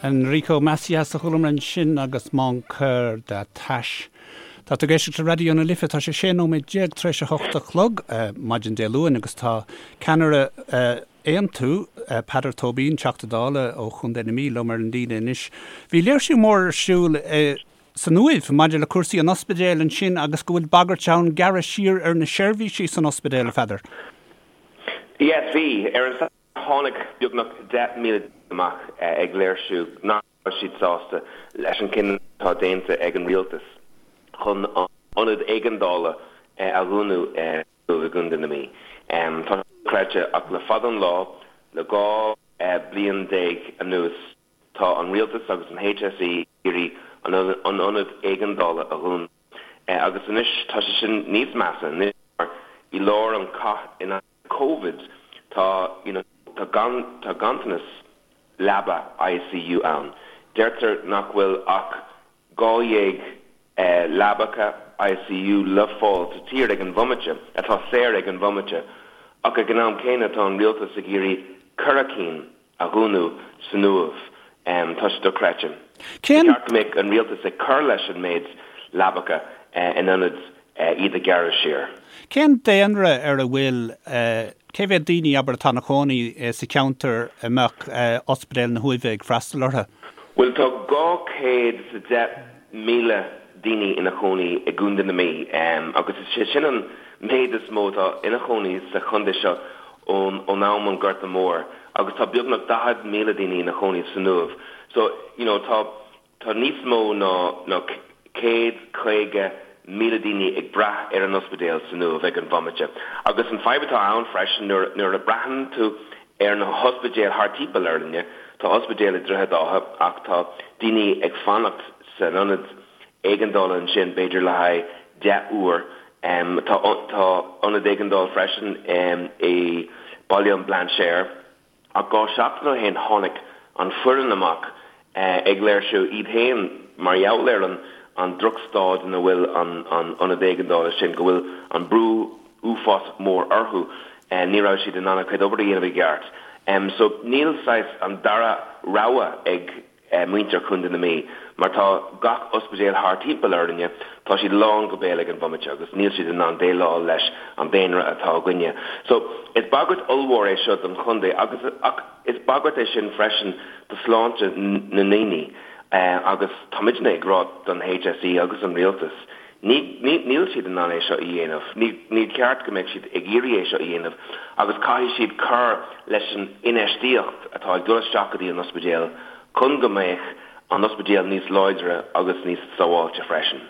Enrico Macias a chualamar ansin agus Mon Coeur D'attache. Tá tú ag éisteacht le Raidió na Life, tá sé 16 nóiméad tar éis a 8 a chlog maidin Dé Luain agus tá ceannaire Aontú, Peadar Tóibín, Teachta Dála ó Chontae na Mí liom ar an líne anois. Bhí léirsiú mór ar siúl san Uaimh maidir le cúrsaí an ospidéil ansin agus go bhfuil bagairt ann gearradh siar ar na seirbhísí san ospidéal, a Pheadair. Yes, bhí. Ar an Satharn tháinig beagnach 10,000 duine amach ag léirsiú nach raibh siad sásta leis an cinneadh atá déanta ag an rialtas chun an ionad éigeandála a dhúnadh i gContae na Mí. Tá sé dochreidte ach le fada an lá, le 12 bliain anuas, tá an rialtas agus an HSE ag iarraidh an ionad éigeandála a dhúnadh. Agus anois tá sé sin níos measa anois mar i lár an cath in aghaidh Covid tá you know tá gan tá ganntanas leaba ICU ann. Deirtear nach bhfuil ach 12 leabacha ICU le fáil sa tír ag an bhomaite, atá saor ag an bhomaite, ach ag an am céanna tá an rialtas ag iarraidh 4 cinn a dhúnadh san Uaimh. Tá sé dochreidte. Ba cheart go mbeadh an rialtas ag cur leis an méid leabacha in ionad iad a ghearradh siar. Cén daonra ar a bhfuil, cé mhéad daoine, abair, atá ina chónaí sa cheantar a mbeadh Ospidéal na hUaimhe ag freastal orthu? Bhuel, tá 210,000 daoine ina chónaí i gContae na Mí agus is é sin an méid is mó atá ina chónaí sa chontae seo ón am an Gorta Mór agus tá beagnach 40,000 daoine ina chónaí san Uaimh. So, you know, tá tá níos mó ná ná 150,000 daoine ag brath ar an ospidéal san Uaimh ag an bhomaite. Agus an fadhb atá ann freisin nuair nuair a braitheann tú ar na hospidéil thart timpeall orainne, tá ospidéal i Droichead Átha ach tá daoine ag fanacht san ionad éigeandála ansin b'fhéidir le haghaidh 10 uair. Tá tá ionad éigeandála freisin i Baile an Bhlainséir ach 2 seachtain ó shin tháinig an foireann amach ag léirsiú iad féin mar gheall ar an an drochstaid ina bhfuil an an ionad éigeandála sin, go bhfuil an brú uafásach mór orthu, ní raibh siad in ann a gcuid obair a dhéanamh i gceart. So níl saghas an dara rogha ag muintir Chontae na Mí, mar tá gach ospidéal thart timpeall orainne, tá siad lán go béal ag an bhomaite agus níl siad in ann déileáil leis an daonra atá againne. So, is bagairt ollmhór é seo don chontae agus ach is bagairt é sin freisin do shláinte na ndaoine agus táimidne ag rá don HSE agus an rialtas, ní, ní, níl siad in ann é seo a dhéanamh, ní, ní ceart go mbeadh siad ag iarraidh é seo a dhéanamh agus caithfidh siad cur leis an infheistíocht atá ag dul isteach go dtí an ospidéal chun go mbeadh an ospidéal níos láidre agus níos sábháilte freisin.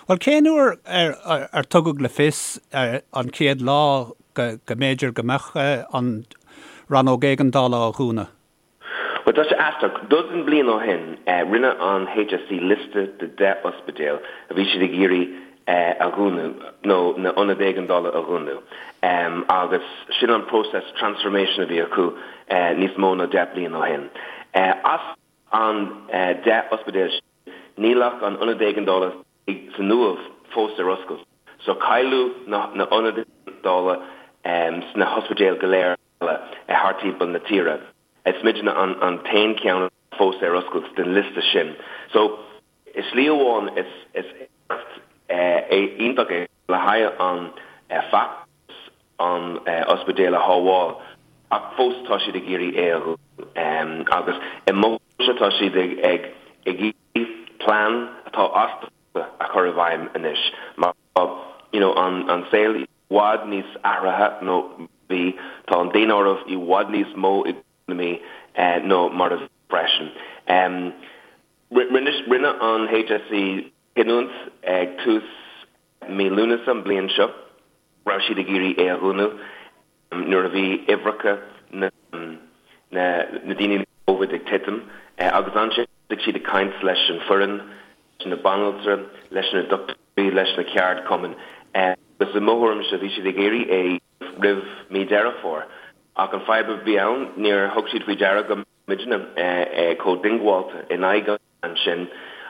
Bhuel, cén uair ar, ar tugadh le fios an chéad lá go, go mb'fhéidir go mbeadh an rannóg éigeandála á dhúnadh? Bhuel, tá sé aisteach. Dosaen bliain ó shin, rinne an HSE liosta de 10 ospidéal a bhí siad ag iarraidh a dhúnadh, nó na ionaid éigeandála a dhúnadh. Agus sin an próiseas transformation a bhí acu níos mó ná 10 bliain ó shin. As an 10 ospidéal sin, níl ach an ionad éigeandála san Uaimh fós ar oscailt. So cailleadh na hionaid éigeandála sna hospidéil go léir. eile thart timpeall na tíre. Is muidne an t-aon cheann fós ar oscailt den liosta sin. So, i slí amháin is éacht iontach é le haghaidh an feachtas an ospidéal a shábháil ach fós tá siad ag iarraidh é a dhúnadh agus i mo thuairimse tá siad ag iarraidh plean atá as dáta a chur i bhfeidhm anois mar tá you know an saol i bhfad níos athraithe ná bhí. Tá an daonáireamh i bhfad níos mó i na Mí ná mar a bhí freisin. Rinne an HSE cinniúint ag tús mí Lúnasa an bliain seo go raibh siad ag iarraidh é a dhúnadh nuair a bhí uimhreacha na ndaoine le Covid ag titim agus ansin thosaigh siad ag caint leis an foireann, leis na banaltra, leis na dochtúirí, leis na ceardchumainn agus i mo thuairimse bhí siad ag iarraidh é roimh mí Deireadh Fómhair. Ach an fadhb a bhí ann, níor thug siad faoi deara go mbeadh muidne chomh diongbháilte in aghaidh an plean sin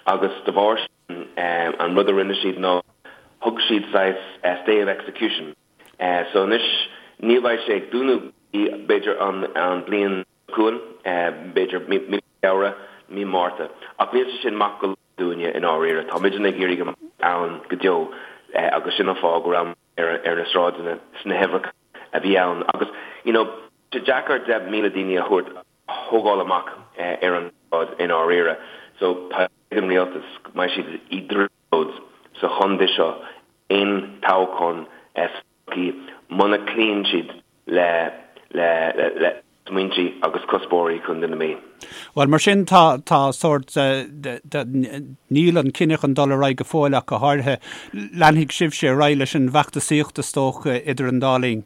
agus de bharr sin an rud a rinne siad ná thug siad saghas stay of execution. So anois ní bheidh sé ag dúnadh b'fhéidir an bliain chugainn, b'fhéidir mí Feabhra. mí Márta ach níl sé sin maith go leor dúinne i ndáiríre. Tá muidne ag iarraidh go mbeidh ann go deo agus sin an fáth go raibh ar ar na sráideanna sna huimhreacha a bhí ann agus you know tá sé deacair 10,000 daoine a thabhairt a thógáil amach ar an tsráid i ndáiríre. So tá ag an rialtas go mbeidh siad i dtrioblóid sa chontae seo aon toghchán sa todhchaí muna cloíonn siad le le le smaointe agus cuspóirí Chontae na Mí. Bhuel, mar sin, tá, tá sórt de, de, níl an cinneadh chun dul ar aghaidh go fóill ach go háirithe. Leanfaidh sibhse ar aghaidh leis an bhfeachtasaíocht, is dócha, idir an dá linn.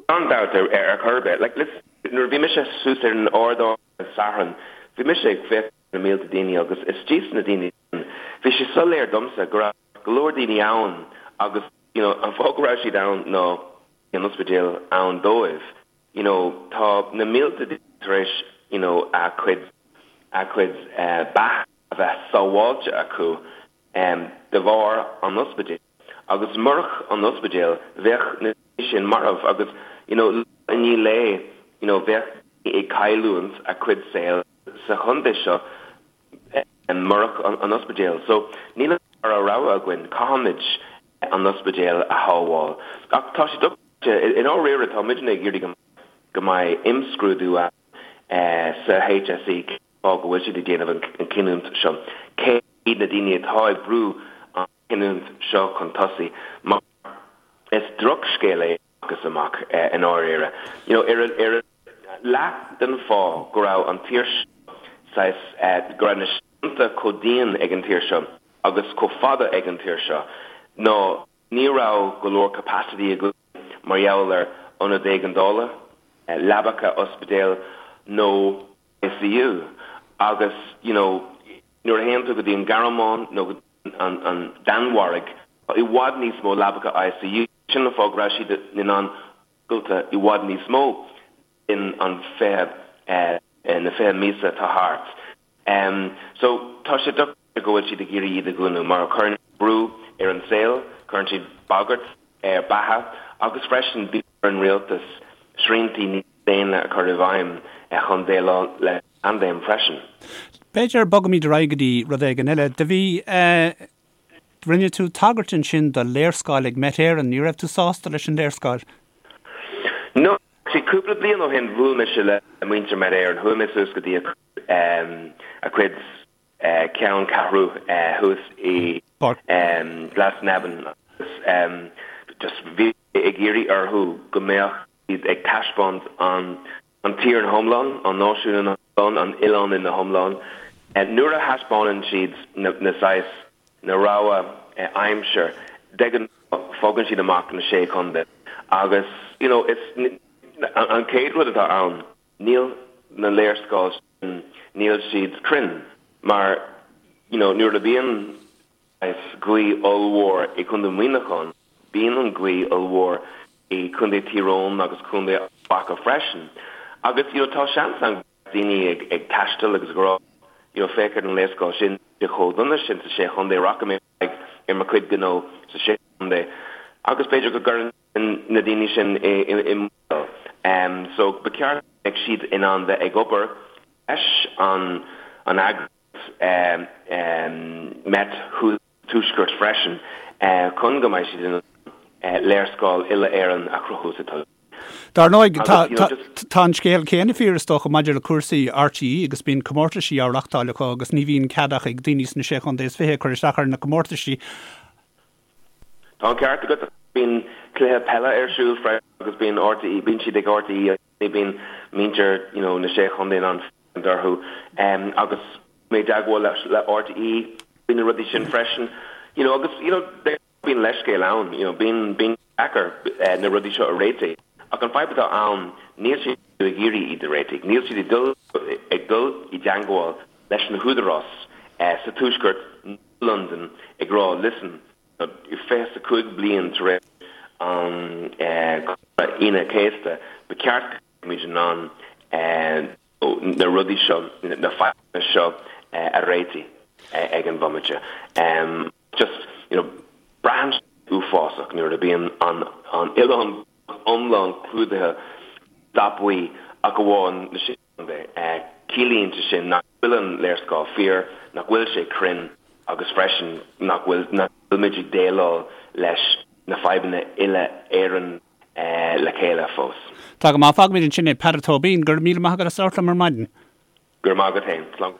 Gan dabht ar, ar chor ar bith. Like, listen, nuair a bhí mise suas ar an ardán ar an Satharn, bhí mise ag féachaint ar na mílte daoine agus istigh sna daoine sin, bhí sé soiléir domsa go raibh go leor daoine ann agus, you know, an fáth go raibh siad ann ná bhí an ospidéal ann dóibh. You know, tá na mílte daoine tar éis, you know, a cuid, a cuid beatha a bheith sábháilte acu de bharr an ospidéil. Agus murach an ospidéal, bheadh na daoine sin marbh agus, you know, lá i ndiaidh lae, you know, bheadh daoine ag cailliúint a cuid saoil sa chontae seo murach an ospidéal. So, níl an dara rogha againn, caithfimid an ospidéal a shábháil. Ach tá sé dochreidte, i ndáiríre tá muidne ag iarraidh go mbeidh imscrúdú ann sa HSE cén fáth go bhfuil siad ag déanamh an cinniúint seo, cé hiad na daoine atá ag brú an chinniúint seo chun tosaigh, mar is drochscéal é amach is amach i ndáiríre. You know, ar ar leath den fáth go raibh an tír seo saghas, go raibh na srianta chomh dian ag an tír seo agus chomh fada ag an tír seo ná ní raibh go leor capacity againn mar gheall ar ionad éigeandála, leabacha ospidéil nó ICU agus you know nuair a théann tú go dtí an Ghearmáin nó go dtí an Danmhairg tá i bhfad níos mó leabacha ICU, sin an fáth go raibh siad in ann oscailt i bhfad níos mó in an 20 na 20 míosa atá thart. So tá sé dochreidte go bhfuil siad ag iarraidh iad a dhúnadh mar cuireann siad brú ar an saol, cuireann siad bagairt ar beatha agus freisin bíonn ar an rialtas sriantaí níos déine a chur i bhfeidhm chun déileáil le paindéim freisin. B'fhéidir bogfaimid ar aghaidh go dtí rud éigin eile. Do bhí, rinne tú tagairt ansin do léarscáil ag Met Éireann. Ní raibh tú sásta leis an léarscáil? No, actually cúpla bliain ó shin bhuail mise le muintir Met Éireann. Chuaigh mé suas go dtí a cuid ceanncheathrú thuas i Glasnevin agus just bhí mé ag iarraidh orthu go mbeadh siad ag taispeáint an an tír ina hiomlán, an náisiún ina hiomlán, an oileán ina hiomlán. Nuair a thaispeánann siad na saghas, na rogha aimsir, de ghnáth fágann siad amach na Sé Chontae agus you know is an chéad rud atá ann, níl na léarscáil sin, níl siad cruinn mar you know nuair a bhíonn saghas gaoth ollmhór i gContae Mhuineacháin, bíonn an ghaoth ollmhór i Contae Thír Eoghain agus Contae Ard Mhacha freisin. Agus you know tá seans ann go mbeadh daoine ag ag taisteal agus ag rá you know féach ar an léarscáil sin, níl sé chomh dona sin sa Sé Chontae, rachaidh mé ar aghaidh ar mo chuid gnó sa Sé Chontae agus b'fhéidir go gcuireann sin na daoine sin i i mbaol. So ba cheart go mbeadh siad in ann bheith ag obair leis an an eagraíocht Met Tuaisceart freisin chun go mbeidh siad in ann léarscáil uile-Éireann a chruthú sa todhchaí. Dar ndóigh, tá an scéal céanna fíor is dócha maidir le cúrsaí RTÉ agus bíonn comórtaisí á reachtáil acu agus ní bhíonn cead ach ag daoine sna Sé Chontae is Fiche cur isteach ar na comórtaisí. Tá an ceart agat. Bíonn cluiche peile ar siúl freisin agus bíonn RTÉ, bíonn siad ag RTÉ ní bíonn muintir you know na Sé Chontae in ann féachaint orthu agus mé i dteagmháil le RTÉ faoi na rudaí sin freisin you know agus you know bíonn leithscéal ann you know bíonn bíonn deacair na rudaí seo a réitigh ach an fadhb atá ann níl siad ag iarraidh iad a réitigh níl siad ag dul ag dul i dteagmháil leis na húdaráis sa tuaisceart nó Londain ag rá listen 25 bliain tar éis an Chonradh Aoine an Chéasta, ba cheart go mbeimid in ann na rudaí seo, na fadhbanna seo a réitigh ag an bhomaite. Just, you know, braitheann sé uafásach nuair a bíonn an oileán iomlán clúdaithe dath buí ach amháin na Sé Chontae. Ciallaíonn sé sin nach. bhfuil an léarscáil fíor, nach bhfuil sé cruinn agus freisin nach bhfuil nach bhfuilimid ag déileáil leis na fadhbanna uile-Éireann le chéile fós. Tá go maith. Fágfaimid ansin é. Peadar Tóibín, go raibh míle maith agat as labhairt liom ar maidin. Go raibh maith agat féin. Slán.